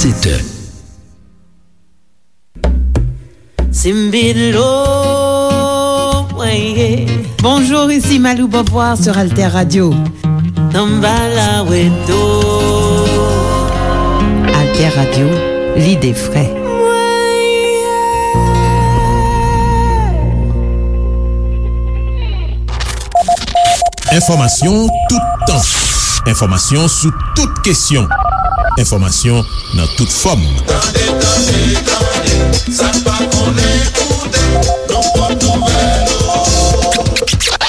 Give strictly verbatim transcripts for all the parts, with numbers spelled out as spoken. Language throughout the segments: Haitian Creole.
Sèt è. Simbilo, mwen ye. Bonjour, ici Malou Beauvoir sur Alter Radio. Samba la weto. Alter Radio, l'idée frais. Enfòmasyon toutan. Enfòmasyon sou tout kesyon. Enfòmasyon nan tout fòm. Tande, tande, tande, sa n pa konnen koute, nan pòt nouvèl.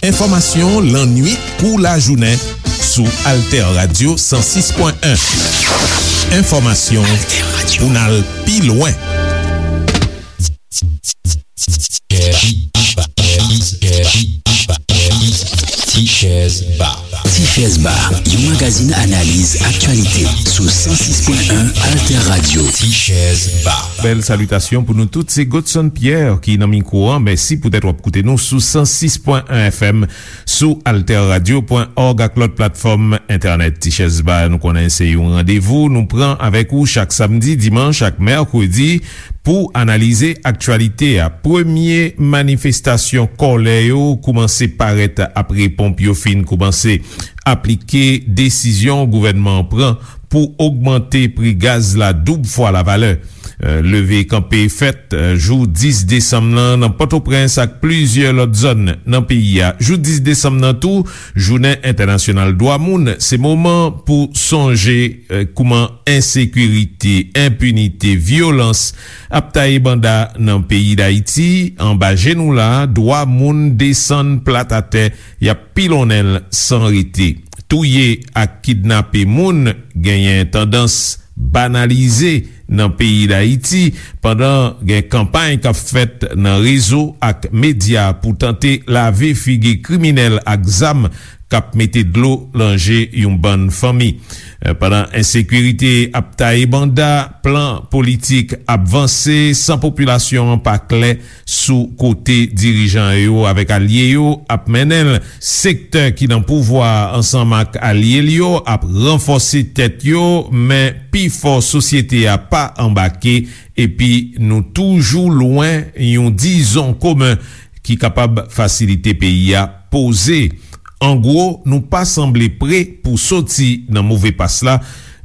Enfòmasyon lannwit kou lajounen sou Alter Radio san sis pwen en. Enfòmasyon pou n al pi lwen. Tichèz Ba. Tichèz Ba, yon magazin analiz aktyalite sou san sis pwen en Alter Radio. Tichèz Ba. Bèl salitasyon pou nou tout. Se Godson Pierre ki nan mikwo an. Mèsi poutèt w ap koute nou sou san sis pwen en F M, sou alter radio pwen òg ak lòt platfòm entènèt. Tichèz Ba, nou konnen se yon randevou nou pran avèk ou chak samdi, dimanch ak mèkredi pou analize aktyalite a. Premye manifestasyon kòlè yo koumanse parèt apre ponp yo fin koumanse aplike desizyon gouvènman an pran pou ogmante pri gaz la doub fwa lavalè. Euh, leve kanpe fèt, euh, jou dis desanm nan nan Pòtoprens ak plizyè lòt zòn nan peyi a. Jou dis desanm nan tou, jounen entènasyonal dwa moun, se moman pou sonje, euh, kouman ensekirite, enpinite, vyolans ap taye banda nan peyi Dayiti, anba je nou la, dwa moun desann plat atè, y ap pilonnen l san rete. Touye ak kidnape moun genyen tandans banalize nan peyi Dayiti, pandan gen kanpay k ap fèt nan rezo ak medya pou tante lave figi kriminèl ak zam k ap mete dlo nan je yon bann fanmi. Eh, pandan ensekirite ap taye banda, plan politik ap vanse san popilasyon an pa klè sou kote dirijan yo avèk alye yo ap mennen l. Sektè ki nan pouvwa a ansanm ak alye l yo ap ranfòse tèt yo, men pifò sosyete a pa anbake, epi nou toujou lwen yon dizon komen ki kapab fasilite peyi a poze. An gwo, nou pa sanble pre pou soti nan move pas la,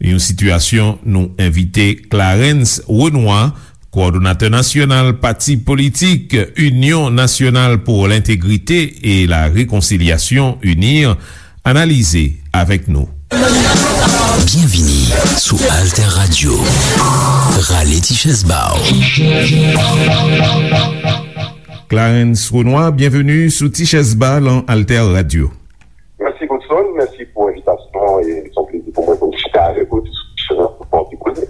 yon sitiyasyon nou envite Clarens Renois, kowòdonatè nasyonal pati politik Union Nationale pour l'Intégrité et la Réconciliation, UNIR, analize avèk nou. Byenvini sou Alter Radio. Rale ti chèz ba w. Clarens Renois, byenveni sou Ti Chèz Ba lan Alter Radio. Mèsi, Godson. Mèsi pou envitasyon an e se yon plezi pou mwen pou m chita avèk ou sou kesyon nan pou fè yon ti koze.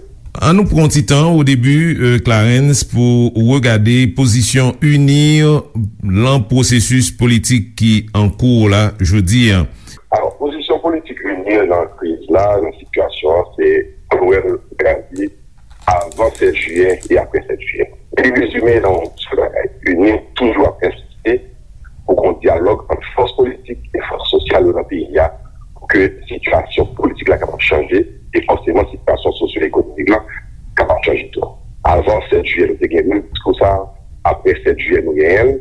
An nou pran ti tan o debi, euh, Clarens, pou w regade pozisyon UNIR lan pwosesis politik ki an kou la jodi a. Alò, pozisyon politik UNIR lan kriz la, lan sitiyasyon an, se Crowell Gravy avan sèt jiyè e apre sèt jiyè. Li rezime nan yon sèl bagay. UNIR toujou ap ensiste pou gen yon dyalòg ant fòs politik e fòs sosyal yo nan peyi a pou ke sitiyasyon politik la kapab chanje e fòseman sitiyasyon sosyo-ekonomik la kapab chanje tou. Avan sèt jiyè, nou te gen menm diskou sa a. Apre sèt jiyè, nou genyen l.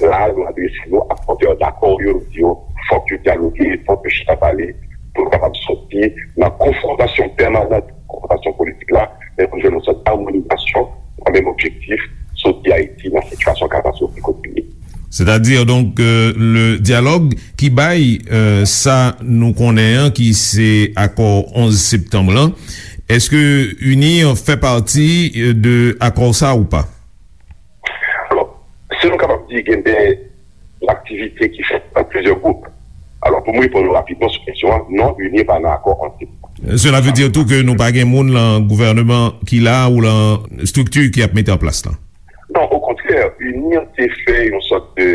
La, nou adrese nou ak pòtè dakò yo, nou di yo, fòk yo dyaloge, fòk yo chita pale, pou nou kapab soti nan konfwontasyon pèmanan, konfwontasyon politik la, men pou nou jwenn yon sòt amonizasyon nan menm objektif, soti Ayiti nan sitiyasyon katastwofik kote li ye. Sètadi, donk, euh, le dyalòg ki bay, euh, sa nou konnen an, ki se akò onz septanm lan, èske UNIR fè pati, euh, de akò sa ou pa? Alò, si nou kapab di, gen de aktivite ki fèt nan plizyè gwoup. Alò, pou mwen reponn ou rapidman sou kesyon an, non, UNIR pa nan akò antre. Cela veut dire tou ke nou pa gen moun lan gouvèneman ki la ou lan estrikti ki ap mete an plas lan? Non, okontrè, UNIR te fè yon sòt de,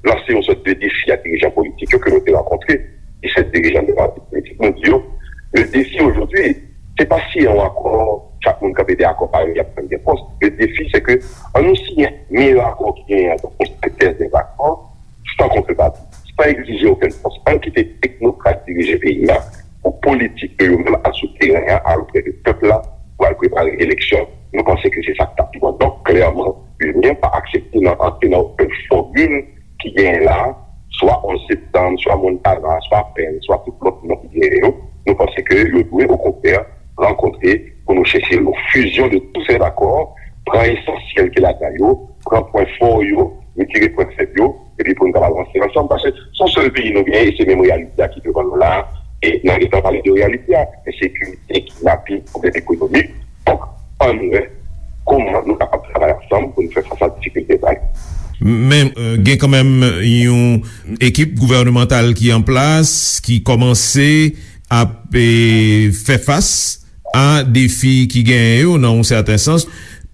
lanse yon sòt de defi a dirijan politik yo ke nou te rankontre, disèt dirijan de pati politik. Nou di yo, le défi aujourd'hui, se pa siyen yon akò, chak moun kanpe dèyè akò pa yo, y ap pran de pòs. Le défi, se ke an nou siyen meyè akò ki genyen an, donk, yon sentèz de akò, san kontrepati, san egzije okenn pòs. Ann kite teknokrat dirije peyi a pou politik yo, yo menm al sou teren an, al oprè de pèp la, pou al prepare eleksyon. Nou panse ke se sa k t ap pi bon. Donk, klèman, UNIR pa aksepte nan antre nan okenn fòmil ki genyen la, swa onz septanm, swa Montana, swa Pèn, swa tout lòt non ki genyen yo. Nou panse ke yo dwe, okontrè, rankontre pou nou chèche yon fusion de tous ces accords, pran esansyèl ki ladan yo, pran pwen fò yo, retire pwen fèb yo, epi pou nou kapab avanse ansanm, paske se yon sèl peyi nou genyen, e se menm reyalite a ki devan nou la a, e n a gentan pale de reyalite a, ensekirite, kidnaping, pwoblèm ekonomik. Donk, ann wè kòman nou kapab travay ansanm pou nou fè fas a difikilte sa yo. Men, euh, gen kanmenm yon ekip gouvènemantal ki an plas, ki kòmanse ap, eh, fè fas a defi ki genyen yo, nan yon sèten sans,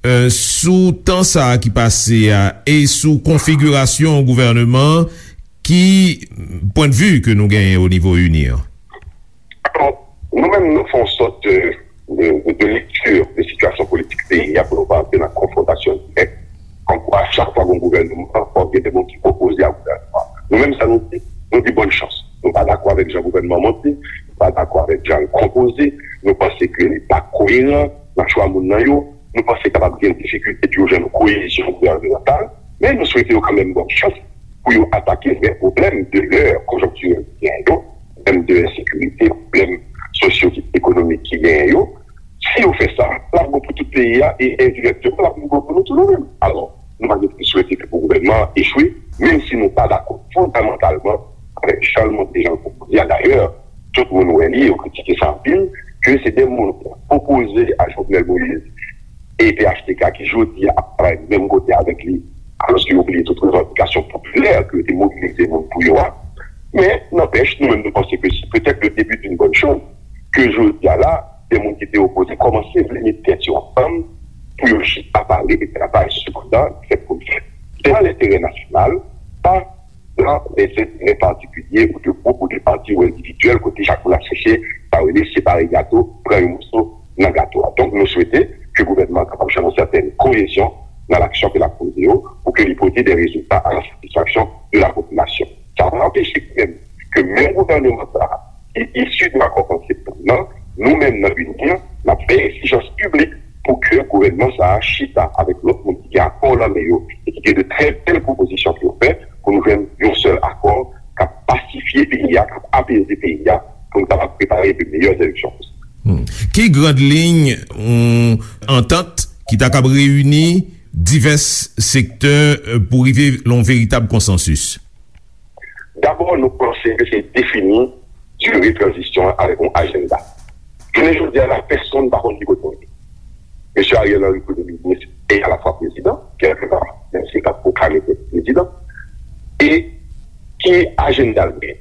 euh, sou tan sa a ki pase a e sou konfigirasyon gouvèneman an, ki pwennvi ke nou genyen o nivo UNIR? Alò, nou menm, nou fè yon sòt de, de, de, de lekti de sitiyasyon politik peyi a pou nou pa antre nan konfwontasyon dirèk. Kòmkwa, chak fwa gen yon gouvèneman, fòk gen de moun ki opoze a gouvèneman. Nou menm, sa nou di, nou di bòn chans. Nou pa dakò avèk jan gouvèneman an monte, nou pa dakò avèk jan l konpoze, nou panse ke li pa koyeran nan chwa moun nan yo, nou panse kapab gen difikilte pou yo jwenn yon koyezyon gouvènemantal, men nou swete yo kanmenm bòn chans pou yo atake vrè pwoblèm de lè konjonktirèl ki genyen yo, pwoblèm de ensekirite, pwoblèm sosyo-ekonomik ki genyen yo. Si yo fè sa, l ap bon pou tout peyi a e endirèkteman, l ap bon pou nou tou nou menm. Alò, nou pa gen pou swete ke pou gouvènman an echwe, menm si nou pa dakò fondamantalman avèk jan l monte, jan l konpoze a. Dayè, tout moun wè li, yo kritike sa anpil, ke se de moun ki opoze a Jovenel Moïse e P H T K ki jodi a ap travay menm kote avèk li, alòske yo bliye tout revandikasyon popilè ke yo te mobilize moun pou yo a. Men, nanpèch, nou menm nou panse ke se petèt le début d'une bonne chose, ke jodi a la, de moun ki te opoze kòmanse vle met tèt yo ansanm pou yo chita pale e travay, sepandan, fèt pou l fèt. Se nan lenterè nasyonal, pa nan lè enterè patikilye ou de gwoup ou de pati ou endividyèl kote chak moun ap chèche sa yo rele separe gato, pran yon moso nan gato a. Donk, nou swete ke gouvènman an kapab jwenn yon sètèn koyezyon nan aksyon ke l ap poze yo pou ke li pote de rezilta a la satisfaksyon de la popilasyon. Sa pa anpeche menm ke menm gouvènman sa a ki isi de akò konseptan nan, nou menm nan UNIR, n ap fè egzijans piblik pou ke gouvènman sa a chita avèk lòt moun ki gen akò nan men yo e ki gen de trè bèl pwopozisyon pou yo fè pou nou jwenn yon sèl akò k ap pasifye peyi a, k ap apeze peyi a, pou nou kapab prepare de meyè eleksyon posib. Hmm. Ki grand liy yon antant ki ta kab reyini divès sektè, euh, pou rive lan yon veritab konsansis? Dabò, nou panse ke se defini dire tranzisyon an avèk yon ajanda. Jounen jodi a la, pèsonn pa konn ki kote l ye. Mesye Ariel Henry, premye minis e alafwa prezidan, kèlkeswa, menm si l pa t pwoklame tèt li prezidan, e ki ajanda l gen?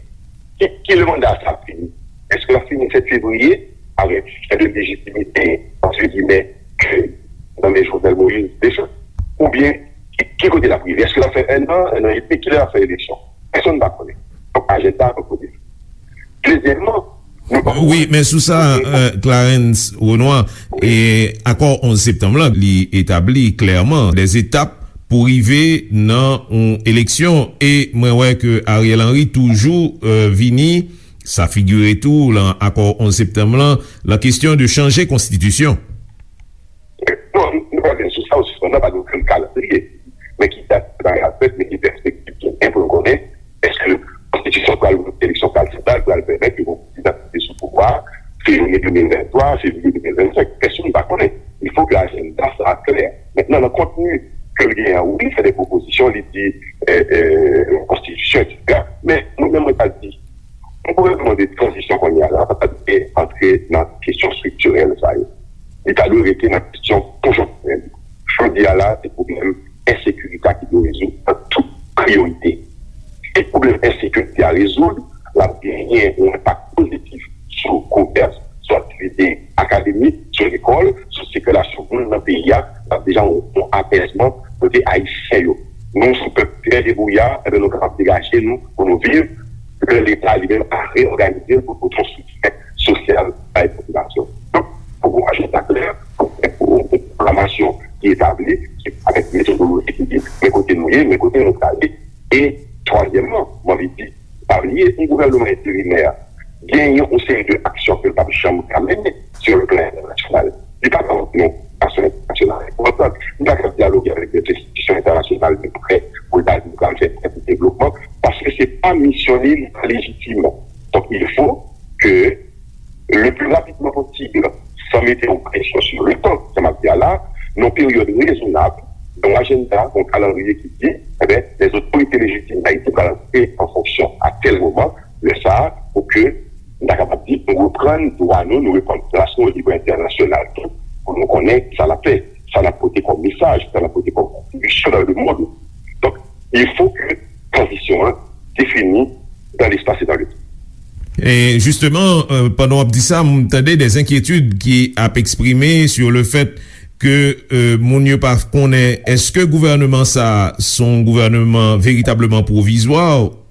Ki, ki le manda sa ap fini? Èske l ap fini sèt fevriye avèk fen de lejitimite, entre guillemets, ke nan men Jovenel Moïse deja? Oubyen, ki, ki kote l ap rive? Èske l ap fè enn an, enn an edmi? Kilè l ap fè eleksyon? Pèsonn pa konnen. Donk, ajanda an poko defini. Dezyèmman, nou pa... Wi, men sou sa, euh, Clarens Renois, e akò onz septanm lan, li etabli klèman dèzetap pou rive nan yon eleksyon. E mwen wè ke Ariel Henry toujou, euh, vini, sa figire tou lan akò onz septanm lan, lan kesyon de chanje konstitisyon. Non, nou pa vin sou sa, ou sispann nan, pa gen okenn kalandriye. Men ki dat bagay ap fèt, men ki pèspektiv ki gen pou nou konnen, èske konstitisyon pral, eleksyon pral fèt la, pral pèmèt ke yon prezidan ki te sou pouvwa a, fevriye de mil venntwa, fevriye de mil vennsenk, pèsonn pa konnen. Il faut que ajanda sa a klè. Mentnan, nan kontni ke l genyen an, wi, li fè de pwopozisyon, li di, euh, euh, konstitisyon, etsetera. Men, mwen menm, mwen ta di, yon gouvènman de tranzisyon kounye a la, pa ta dwe antre nan kesyon estriktirèl sa yo. Li ta dwe rete nan kesyon konjonktirèl. Jodi a la, se pwoblèm ensekirite a ki dwe rezoud an tout priyorite. Si pwoblèm ensekirite a rezoud, l ap genyen yon enpak pozitif sou komès, sou aktivite akademik, sou lekòl, sou sikilasyon moun nan peyi a, l ap deja yon, yon apèzman kote Ayisyen yo. Nou, se yon pèp trè debouya, enben, nou kapab degaje nou pou nou viv, lè Leta li menm a reyòganize l pou pote yon soutyen sosyal bay popilasyon. Donk, fòk gon ajanda klè, fòk gon pwogramasyon ki etabli, ki avèk metodoloji ki di, men kote nou ye, men kote nou prale. E twazyèmman, mwen anvi di, pa bliye, yon gouvènman enterimè genyen yon seri de aksyon ke l p ap janm ka mennen sou le plan entènasyonal. Li pa ka yon konferans entènasyonal enpòtan. Li pa ka dyaloge avèk lòt enstitisyon entènasyonal de prè pou l ta di l pral fè tèl devlopman, paske se pa misyon li, li pa lejitim. Donk, il faut que le plus rapidement possible, sans mettre une pression sur le temps, sa m ap di a la, nan yon peryòd rezonab, yon ajanda, yon kalandriye ki di, enben, les autorités légitimes d'Haïti pral aji an fonksyon a tèl moman, lè sa a, pou ke nou ta kapab di, nou reprann dwa nou, nou reprann plas nou o nivo entènasyonal tou, pou nou konnen sa n ap fè, sa n ap pote kòm mesaj, sa n ap pote kòm kontribisyon dans le monde. Donk, il faut que tranzisyon an défini dans l'espace et dans le temps. E jisteman, euh, pandan w ap di sa, m tande de enkyetid ki ap eksprime sur le fait ke, euh, moun yo pa konnen èske gouvènman sa a se yon gouvènman veritableman pwovizwa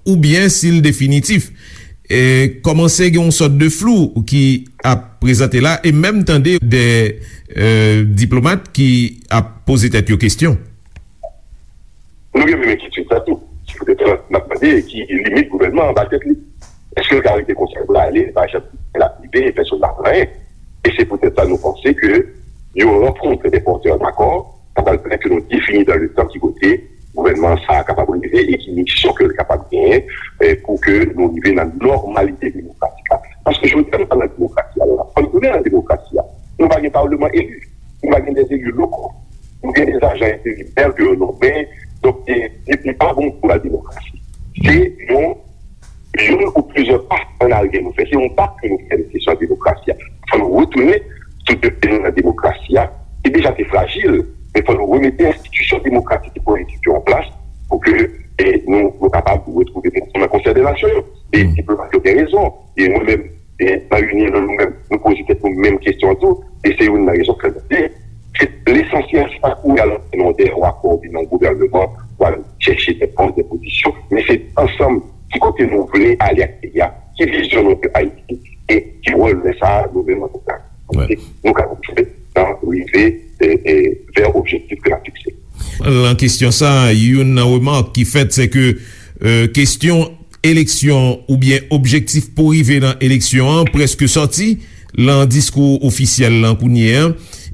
oubyen si l definitif. E kòmanse gen yon sòt de flou ki ap prezante la, e menm tande de, euh, diplomat ki ap poze tèt yo kesyon. Nou gen menm enkyetid sa tou. Se poutèt sa n ap mande ki limit gouvènman an ba tèt li. Èske l ka rete konsa pou l ale, pa janm l ap rive, pèsonn pa konn anyen? E se poutèt sa nou panse ke yon rankont de pòtè dakò, sa pral pèmèt ke nou defini dans le temps ki kote gouvènman sa a kapab rive e ki misyon ke l kapab genyen, eh, pou ke nou rive nan nòmalite demokratik la. Paske jodi a nou pa nan demokrasi a la. Fò nou tounen nan demokrasi a. Nou pa gen palman eli. Nou pa gen de eli lokal. Nou gen de ajan enterimè ke yo nonmen. Donk, e, e, e pa bon pou la demokrasi. Se yon, youn ou plizyè pa an aryè nou fè. Se yon pa ke nou fè nan kesyon demokrasi a. Fò nou retounen sou de pye nou nan demokrasi a, ki deja te frajil, men fò nou remete enstitisyon demokratik e politik yo an plas pou ke, e, nou, nou kapab retwouve nou nan Konsèy de Nasyon yo. E diplomat yo gen rezon. E mwen menm, e, nan Unien, nou menm, nou poze tèt nou menm kesyon an tou. E se youn nan rezon ke nou di, se lesansyèl, se pa kouri al antre nan de yon akò oubyen nan yon gouvènman pou al chèche de pòs, de pozisyon, men se ansanm ki kote nou vle ale ak peyi a, ki vizyon nou pou Ayiti, e ki wòl lè sa a nou menm antanke nou kapab jwe nan rive, e, e, vè objektif ke n ap fikse. Nan kesyon sa a, youn nan remak ki fèt, se ke, e, kesyon eleksyon oubyen objektif pou rive nan eleksyon an prèske sòti nan diskou ofisyèl lan kounye a.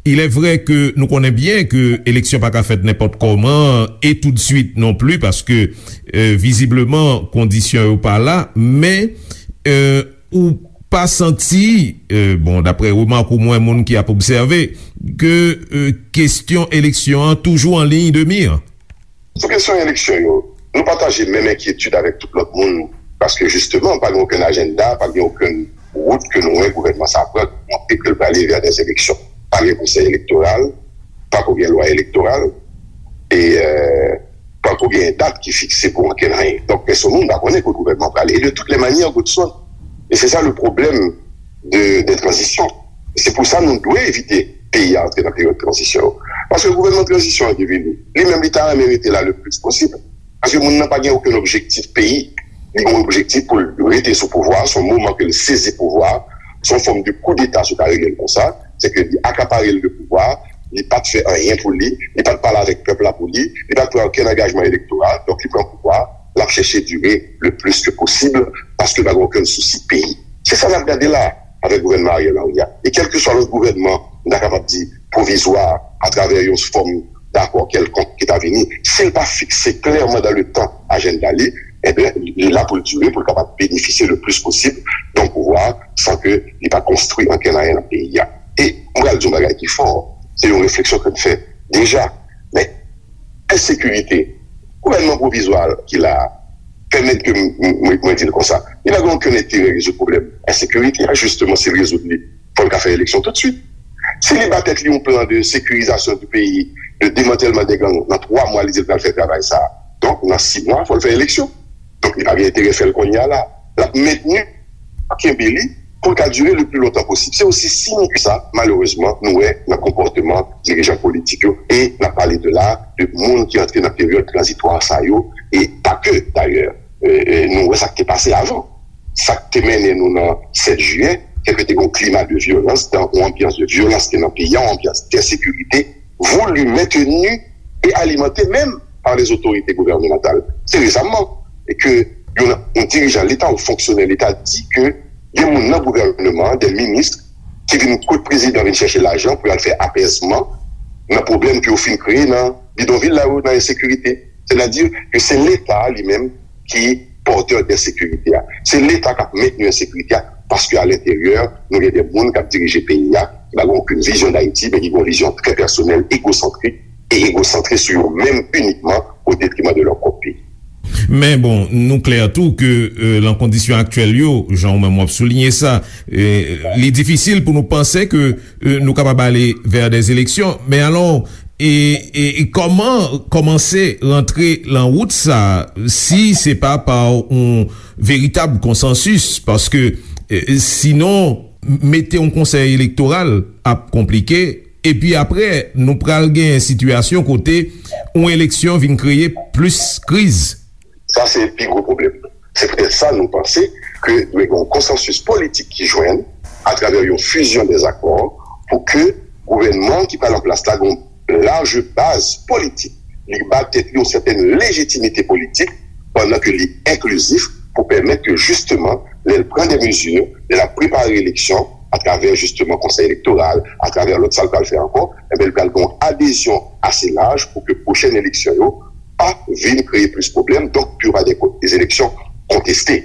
Il est vrai ke nou konnen byen ke eleksyon pa ka fèt nenpòt kòman e toutswit non pli, paske, e, vizibleman, kondisyon yo pa la, men, e, ou pa santi, e, bon, daprè remak ou mwen, moun ki ap obsève, ke, e, kesyon eleksyon an toujou an liy de mi? Sou kesyon eleksyon yo, nou pataje menm enkyetid avèk tout lòt moun, paske jisteman, pa gen okenn ajanda, pa gen okenn wout ke nou wè gouvènman sa a pran, ki montre ke l prale vè dè eleksyon. Pa gen konsèy elektoral, pa ko gen lwa elektoral, e, e, pa ko gen dat ki fikse pou okenn anyen. Donk, pèsonn moun pa konnen kote gouvènman prale. E de toutes les manières, Godson, e se sa le pwoblèm de, de tranzisyon. Se pou sa nou dwe evite peyi a antre nan peryòd tranzisyon yo. Paske gouvènman tranzisyon an ki vini, li menm li ta renmen rete la le plis posib. Paske moun nan pa gen okenn objektif peyi. Li gen yon objektif pou l rete sou pouvwa, se yon moman ke l sezi pouvwa, se yon fòm de koudeta si w ta rele l konsa, se ke li akapare l de pouvwa, li pa t fè anyen pou li, li pa t pale avèk pèp la pou li, li pa t pran okenn angajman elektoral, donk li pran pouvwa, l ap chèche dire le plis ke posib, paske l pa gen okenn sousi peyi. Se sa n ap gade la avèk gouvènman Ariel Henry a. E kèlkeswa lòt gouvènman, nou ta kapab di pwovizwa, atravè yon fòm dakò kèlkonk ki ta vini, si l pa fikse klèman dan le tan ajanda li, enben, li la pou l dire, pou l kapab benefisye le plis posib de yon pouvwa san ke li pa konstwi ankenn anyen nan peyi a. E mwen pral di yon bagay ki fò, se yon refleksyon ke m fè deja, men ensekirite, gouvènman pwovizwa ki la a, pèmèt ke m, m, mwen, mwen di l konsa, li pa gen okenn enterè rezoud pwoblèm ensekirite a, jisteman, si l rezoud li, fò l ka fè eleksyon toutswit. Si li ba tèt li yon plan de sécurisation du pays, de démantèlman dè gang, nan twa mwa, li di l pral fè travay sa a. Donk, nan sis mwa, fò l fè eleksyon. Donk, li pa gen enterè fè l kounye a la. L ap mentni, kenbe li, pou l ka dire le pli lontan posib. Se osi simp ke sa, malerezman, nou wè nan konpòteman dirijan politik yo. E n ap pale de la, de moun ki antre nan peryòd tranzitwa sa yo, e pa ke, dayè. E, e, nou wè sa k te pase avan. Sa k te mennen nou nan sèt jiyè, se ke te gen yon klima de vyolans, yon anbyans de vyolans ki te nan peyi a, yon anbyans de ensekirite, voulu, maintenu et alimenté même par les autorités gouvernementales. Se resaman ke yon, yon dirijan Leta, yon fonksyonè Leta di ke gen moun nan gouvènman an, de minis, ki vin kot prezidan, vin chèche lajan pou y al fè apèzman nan pwoblèm ke yo fin kreye nan bidonvil la yo, nan ensekirite. Sètadi ke se Leta li menm ki pòtè de ensekirite a. Se Leta k ap mentni ensekirite a, paske alenteryè, nou gen de moun k ap dirije peyi a, ki pa gen okenn vizyon d Ayiti, men ki gen yon vizyon trè pèsonèl, egosantrik, e egosantre sou yo menm inikman, o detriman de lè pwòp peyi. Men bon, nou klè tou ke, euh, lan kondisyon aktyèl yo, jan ou menm w ap souliye sa, euh, li difisil pou nou panse ke, euh, nou kapab ale vè de eleksyon. Men alò, e, e, e kòman kòmanse rantre lan wout sa, si se pa pa yon veritab konsansis? Paske, euh, sinon, mete yon konsèy elektoral ap konplike. Epi apre, nou pral gen sitiyasyon kote yon eleksyon vin kreye plis kriz. Sa se pi gwo pwoblèm. Se poutèt sa nou panse ke dwe gen yon konsansis politik ki jwenn atravè yon fizyon dèzakò pou ke gouvènman ki pral an plas la gen yon laj baz politik. Li ba tèt li yon sètèn lejitimite politik pandan ke li enklizif pou pèmèt ke jisteman, lè l pran de mezi, lè l ap prepare eleksyon, atravè jisteman konsèy elektoral, atravè lòt sa l pral fè ankò, enben, l pral gen yon adezyon ase laj pou ke pwochèn eleksyon yo pa vin kreye plis pwoblèm, donk pou yo pa de, de eleksyon konteste.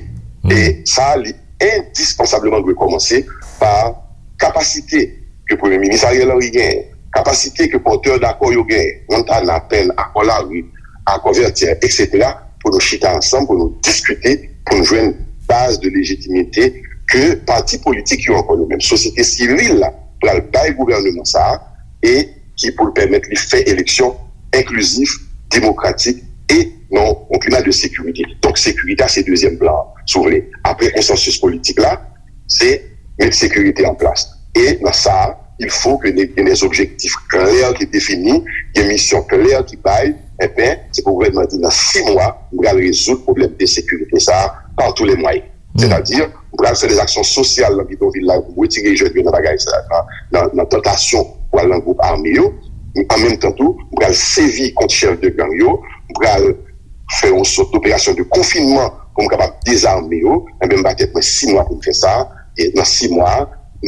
E sa, li endispansableman dwe kòmanse pa kapasite ke Premye Minis Ariel Henry genyen, kapasite ke pòtè dakò yo genyen, Montana, Penn, Akò Lari, Akò Vètyè, etsetera, pou nou chita ansanm, pou nou diskite, pou nou jwenn baz de lejitimite ke pati politik yo, ankò yo menm, sosyete sivil la, pral bay gouvèneman sa a, e ki pou l pèmèt li fè eleksyon enklizif, demokratik e nan yon klima de sekirite. Donk, sekirite a se dezyèm plan an, si w vle. Apre konsansis politik la, se met sekirite an plas. E nan sa a, il faut que gen des objectifs clairs ki defini, gen misyon klè ki bay, enben, se pou gouvènman di nan sis mwa, m pral rezoud pwoblèm de sekirite sa a par tous les moyens. Sètadi, m pral fè de aksyon sosyal nan bidonvil la pou m retire jèn yo nan bagay sa, nan, nan, nan tantasyon pou al nan gwoup ame yo. An menm tan tou, m pral sèvi kont chèf de gang yo, m pral fè yon sòt doperasyon de konfinman pou m kapab dezame yo. Enben, m ba tèt mwen sis mwa pou m fè sa. E nan sis mwa,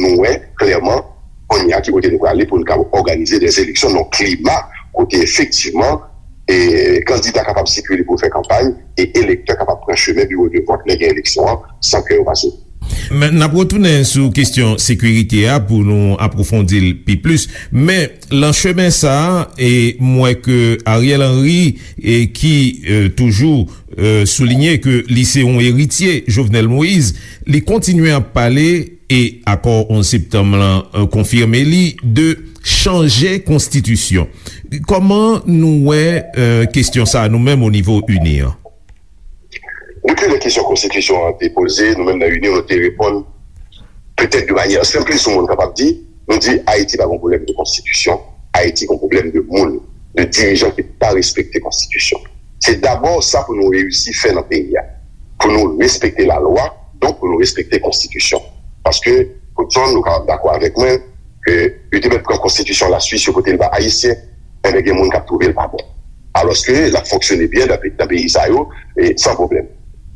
nou wè klèman kounye a ki kote nou prale pou nou kapab òganize de eleksyon nan klima kote efektivman e kandida kapab sikile pou fè kanpay e elektè kapab pran chemen biwo de vòt lè gen eleksyon an san ke yo pase. Men, n ap retounen sou kesyon sekirite a pou nou apwofondi l pi plis. Men, lan chemen sa a, e m wè ke Ariel Henry, e ki, e, toujou, e, soulinye ke li se yon eritye Jovenel Moïse, li kontinye ap pale e akò onz septanm lan, e, konfime li de chanje konstitisyon. Kòman nou wè, e, kesyon sa a nou menm o nivo ini an? Gen plizyè kesyon konstitisyon an te poze, nou menm nan ini nou te reponn petèt de manyè senplis yon moun kapab di, nou di Ayiti pa gen pwoblèm de konstitisyon, Ayiti gen pwoblèm de moun, de dirijan ki pa respekte konstitisyon. Se dabò sa pou nou reyisi fè nan peyi a. Pou nou respekte lalwa, donk pou nou respekte konstitisyon. Paske, Goodson, nou kapab dakò avèk mwen, ke yo te mèt pran konstitisyon Laswis, yo pote l ba Ayisyen, enben gen moun k ap twouve l pa bon. Alòske l ap fonksyone byen nan pe-, nan peyi sa yo, e san pwoblèm.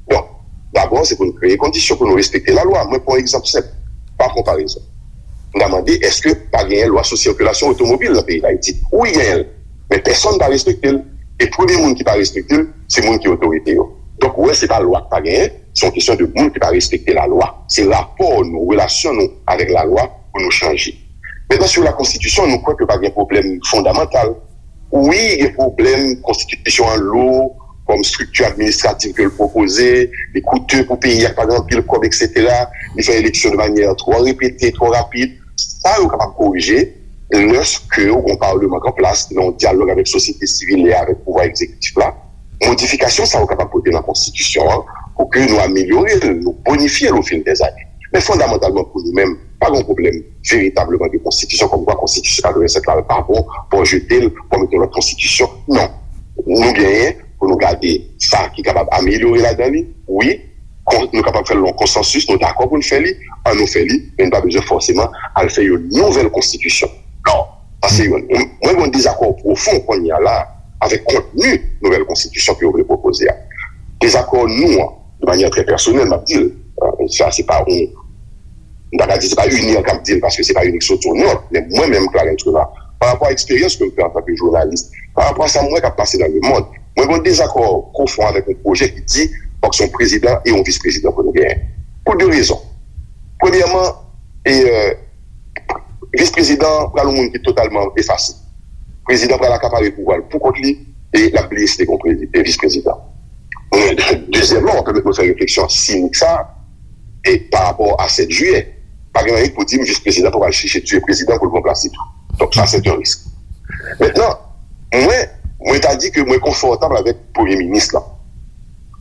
Donk, dabò, se pou nou kreye kondisyon pou nou respekte lalwa. Mwen pran yon egzanp senp, pa konparezon. M ta mande, èske pa genyen lwa sou sikilasyon otomobil nan peyi Dayiti? Wi, genyen l. Men pèsonn pa respekte l. E premye moun ki pa respekte l, se moun ki otorite yo. Donk, ou wè, se pa lwa k pa genyen, se yon kesyon de moun ki pa respekte lalwa. Se rapò nou, relasyon nou avèk lalwa pou nou chanje. Mentnan, sou la konstitisyon, nou kwè ke pa gen pwoblèm fondamantal. Wi, gen pwoblèm, konstitisyon an lou, kòm estrikti administratif ke l pwopoze, li koute pou peyi a, pa gen anpil kòb, etsetera. Li fè eleksyon de manyè twò repete, twò rapid. Sa yo kapab korije lèske ou gen yon palman k an plas, ki nan yon dyalòg avèk sosyete sivil e avèk pouvwa egzekitif la. Modifikasyon sa yo kapab pote nan konstitisyon an pou ke nou amelyore l, nou bonifye l ofil dèzane. Men fondamantalman pou nou menm, pa gen yon pwoblèm veritableman de konstitisyon, kòmkwa konstitisyon katrevennsèt la pa bon, pou jete l, pou mete yon lòt konstitisyon. Non. Nou genyen pou nou gade sa ki kapab amelyore ladan li, wi, kon-, nou kapab fè l nan konsansis, nou dakò pou n fè li, ann nou fè li, men n pa bezwen fòseman al fè yon nouvèl konstitisyon. Non, sa se youn. Mwen, mwen gen yon dezakò pwofon kounye a la avèk kontni nouvèl konstitisyon ke yo vle pwopoze a. Dezakò nou an, de manyè trè pèsonèl, m ap di l, euh, sa se pa yon M ta ka di se pa UNIR k ap di l, paske se pa UNIR ki soti yon nòt, men mwen menm, Clarens Renard, pa rapò a eksperyans ke m fè antanke jounalis, pa rapò a sa m wè k ap pase nan lemonn, mwen gen yon dezakò pwofon avèk yon pwojè ki di fòk se yon prezidan e yon vis prezidan pou nou genyen. Pou de rezon. Premyèman, e, e, vis prezidan pral yon moun ki totalman efase. Prezidan pral akapare pouvwa l pou kont li e l ap bliye si te gen yon prezi- e vis prezidan. Dezyèmman, w ap pèmèt mwen fè refleksyon sinik sa a, e pa rapò a sèt jiyè, pa gen anyen ki pou di m vis prezidan pa pral chèche tiye prezidan pou l ranplase tou. Donk, sa, se yon risk. Mentnan, mwen, mwen ta di ke mwen konfòtab avèk premye minis lan.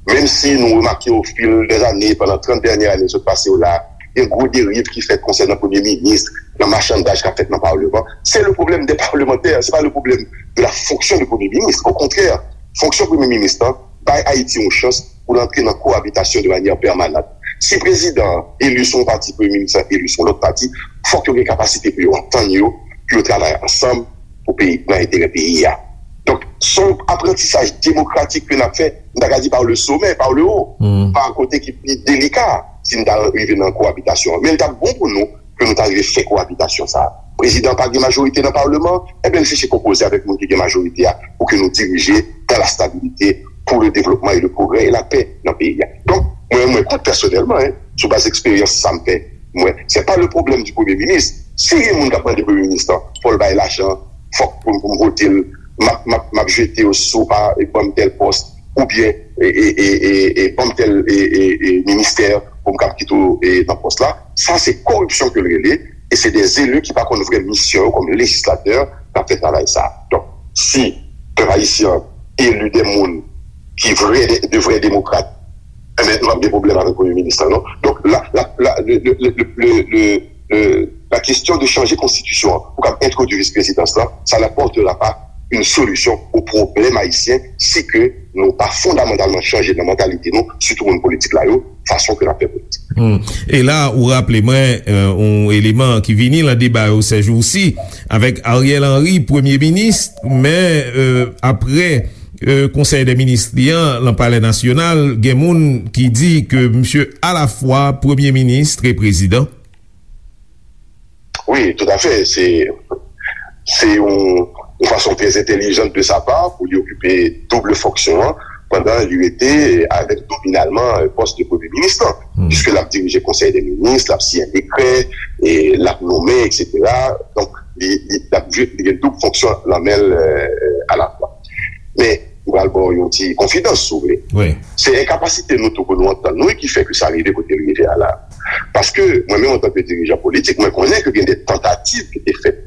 Menm si nou remake o fil dè zane, pandan trant dènye ane sot pase yo la, gen gwo deriv ki fèt konsènan premye minis, nan machandaj k ap fèt nan palman. Se le problème des parlementaires, se pa le problème de la fonction de premye minis. Okontrè, fonksyon premye minis lan bay Ayiti yon chans pou l antre nan koabitasyon de manyè pèmanant. Si prezidan an eli sou yon pati, premye minis lan eli sou yon lòt pati, fòk yo gen kapasite pou yo antann yo, pou yo travay ansanm pou peyi, nan enterè peyi a. Donk, se yon aprantisaj demokratik ke n ap fè, m ta ka di par le sommet, par le haut, pa kote ki pi delika, si n ta rive nan koabitasyon an. Men l t ap bon pou nou ke nou ta rive fè koabitasyon sa a. Prezidan pa gen majorite nan palman, ebyen, l chèche konpoze avèk moun ki gen majorite a pou ke nou dirije dans la stabilité, pour le développement et le progrès et la paix nan peyi a. Donk, mwen, mwen kont pèsonèlman, en, sou baz eksperyans sa m fè, mwen, se pa le problème du premye minis. Si gen moun k ap mande premye minis lan, fò l bay lajan, fòk pou, pou m vote l, m ap, m ap, m ap jete yo si w pa ban m tèl pòs, oubyen, e, e, e, e, e, ban m tèl, e, e, e, ministè pou m kab kite w, e, nan pòs la. Sa, se koripsyon ke l rele, e se de eli ki pa konn vrè misyon yo kòm lejislatè k ap fè travay sa. Donk, si pèp ayisyen an eli de moun ki vrè, de, de vrè demokrat, enben, nou p ap gen pwoblèm avèk premye minis lan, non. Donk, la, la, la, le, le, le, le, le, le, le, la question de changer konstitisyon an pou kab entwodui vis prezidans lan, ça n'apportera pas une solution au problème haïtien si ke nou pa fondamantalman chanje nan mantalite nou, sitou moun politik la yo, fason ke n ap fè politik. Hmm. E la, ou raple mwen, euh, yon eleman ki vini nan deba yo sèjousi, avèk Ariel Henry, premye minis, men, euh, apre, euh, konsèy dè minis li an, nan Palè Nasyonal, gen moun ki di ke misye alafwa premye minis e prezidan. Wi, toutafè. Se, se yon, yon fason trè entèlijan de sa pa pou li okipe doub fonksyon an, pandan li rete avèk nominalman, euh, pòs de premye minis lan. Piske l ap dirije konsèy dè minis, l ap siyen dekrè, e l ap nonmen, etsetera. Donk, li, li, l ap jwe, li gen doub fonksyon nan men l, euh, alafwa. Men, m pral ba w yon ti konfidans, si w vle. Se enkapasite nou tou pou nou antann nou ki fè ke sa rive kote l rive a la. Paske, mwen menm, antanke dirijan politik, mwen konnen ke gen de tantativ ki te fèt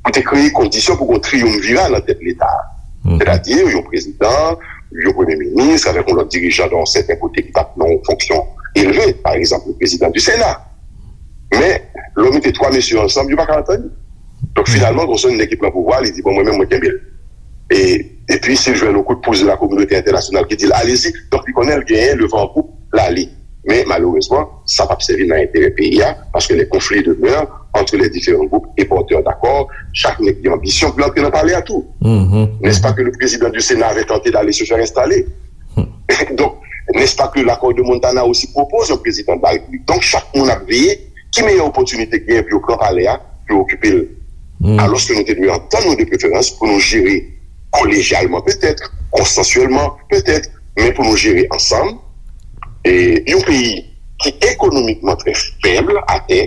pou te kreye kondisyon pou gen yon triyumvira nan tèt Leta a. Sètadi, yon prezidan, yon premye minis, avèk yon lòt dirijan nan yon sèten kote ki t ap nan yon fonksyon elve, pa egzanp, le prezidan di Sena. Men, lè w mete twa mesye ansanm, yo pa ka antann yo. Donk, finalman, gwo sònn nèg ki pran pouvwa, li di, "Bon, mwen menm, mwen kenbe l." E, epi, si l jwenn yon kout pous de la kominote entènasyonal ki di l, "Alezi." Donk, li konnen l genyen le van an poup, l ale. Men, malerezman, sa p ap sèvi nan enterè peyi a, paske les conflits demeurent entre les différents groupes et porteurs d'accords, chak nèg gen anbisyon pou l antre nan palè a tou. N'est-ce pas que le président du Sénat avait tenté d'aller se faire installer? Donc, n'est-ce pas que l'accord de Montana aussi propose un président de la République? Donk, chak moun ap veye ki meyè opòtinite k genyen pou yo pran palè a, pou yo okipe l. Alòske nou te dwe antann nou de preferans pou nou jere kolejyalman petèt, konsansyèlman petèt, men pou nou jere ansanm, e yon peyi ki ekonomikman trè fèb atè,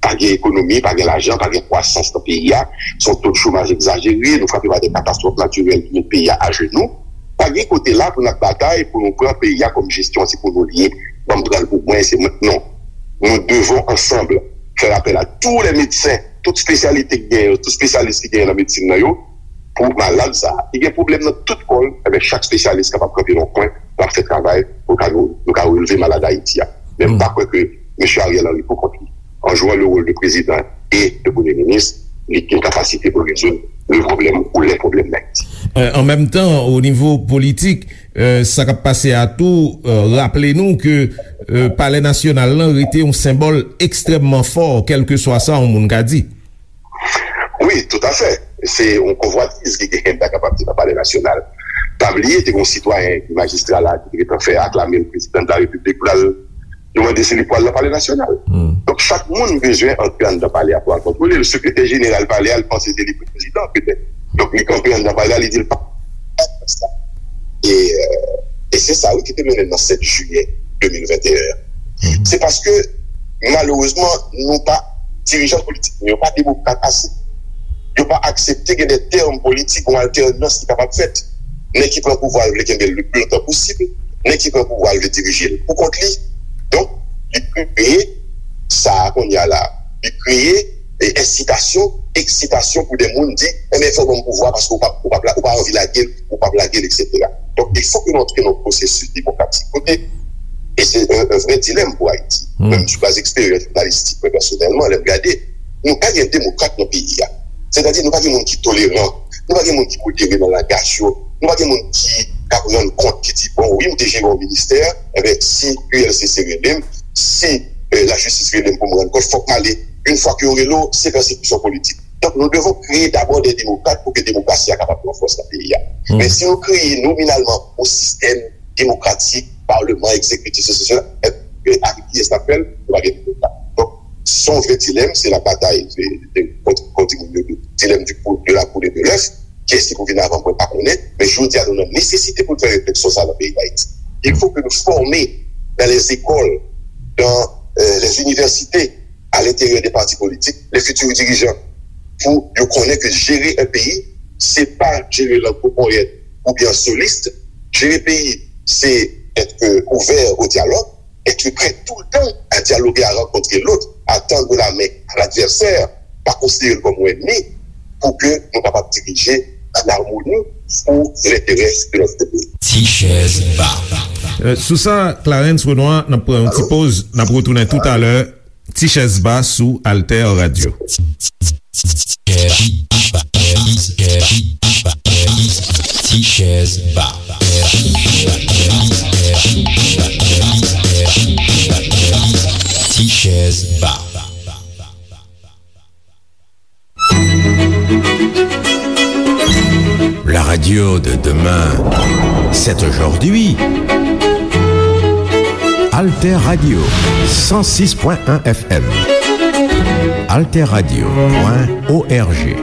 pa gen ekonomi, pa gen lajan, pa gen kwasans nan peyi a, se yon to de chomaj egzajere, nou frape pa de katastwòf natirèl ki met peyi a ajenou. Pa gen kote la pou n ap batay pou nou pran peyi a kòm jesyon se pou nou l ye, ban m pran l pou mwen, se mwen. Non. Nous devons ensemble faire appel à tous les médecins, tout espesyalite ki genyen, tout espesyalis ki genyen nan medsin nan yo, pou malad sa a. Li gen pwoblèm nan tout kò l, enben, chak espesyalis kapab kanpe nan yon kwen, l ap fè travay pou ka nou, nou ka releve malad Ayiti a. Men m pa kwè ke mesye Ariel Henry pou kont li, en jouant le rôle de président et de premier ministre, li gen kapasite pou rezoud le problème ou les problèmes d'Haïti. Euh, an menm tan, o nivo politik, euh, sa k ap pase a tou, euh, raple nou ke, euh, Palè Nasyonal lan rete yon senbòl ekstrèmman fò, kèlkeswa sa yon moun ka di. Wi, toutafè. Se yon konvwatiz ki genyen, m ta kapab di, nan Palè Nasyonal. Pa bliye, te gen yon sitwayen ki majistra la, ki te gentan fè aklame l prezidan de la Repiblik, pou l al, yo mande si li pral nan Palè Nasyonal. Donk, Chak moun bezwen antre anndan palè a pou al kontwole l. Sekretè jeneral palè a, li panse se li prezidan, petèt. Donk, li kanpe anndan palè a, li di l pa. E, euh, e se sa, wi, ki te mennen nan sèt jiyè de mil venteyen an. Se paske, malerezman, nou pa, dirijan politik nou yo pa demokrat ase. Yo pa aksepte gen de tèm politik, yon altènans ki kapab fèt. Nèg ki pran pouvwa a vle kenbe l le pli lontan posib. Nèg ki pran pouvwa a vle dirije l pou kont li. Donk, li kreye sa a kounye a la. Li kreye, e, ensitasyon, eksitasyon pou de moun di, enben, fò w ban m pouvwa paske ou pa, ou pa, ou pa anvi lage l, ou p ap lage l, etsetera. Donk, il faut que nou antre nan yon pwosesis demokratik kote, e se yon, yon vrè dilèm pou Ayiti. Menm sou baz eksperyans jounalistik, mwen pèsonèlman, lè m gade, nou pa gen demokrat nan peyi a. Sètadi, nou pa gen moun ki toleran, nou pa gen moun ki modere nan langaj yo, nou pa gen moun ki k ap rann kont, ki di, bon, wi, m te jere yon ministè, enben, si U L C C rele m, si, eh, lajistis rele m pou m rann kont, fòk m ale. Yon fwa ke yo rele w, se pèsekisyon politik. Donk, nous devons créer d'abord des démocrates pou ke demokrasi a kapab pran fòs nan peyi a. Men si nou kreye nominalman yon sistèm demokratik, palman, egzekitif, sesi, sela, e, e, avèk kiyès n ap fè l? Nou pa gen demokrat. Donk, se yon vrè dilèm, se la batay, se, se, kont, kont moun yo, dilèm du pou-, de la poule et de l'œuf, kiyès ki pou vin avan, mwen pa konnen, men jodi a, nou nan nesesite pou n fè refleksyon sa a nan peyi Dayiti. Il faut que nous formions dans les écoles, dans, euh, les universités, à l'intérieur des partis politiques, les futurs dirigeants, pou yo konnen ke jere yon peyi, se pa jere l an gwo ponyèt oubyen an solis. Jere peyi, se être ouvert au dialogue, être prêt tout le temps à dialoguer, à rencontrer l'autre, à tendre la main à l'adversaire, pa konsidere l kòm yon ènmi, pou ke nou kapab dirije an amoni pou lenterè de notre pays. Ti chèz ba. Euh, sou sa, Clarens Renois, n ap pran yon ti poz, n ap retounen toutalè. Ti chèz ba sou Alter Radio. Ti chèz ba. Ti chèz ba. La radio de demain, c'est aujourd'hui. Alter Radio, cent six point un F M. Alter Radio point O R G.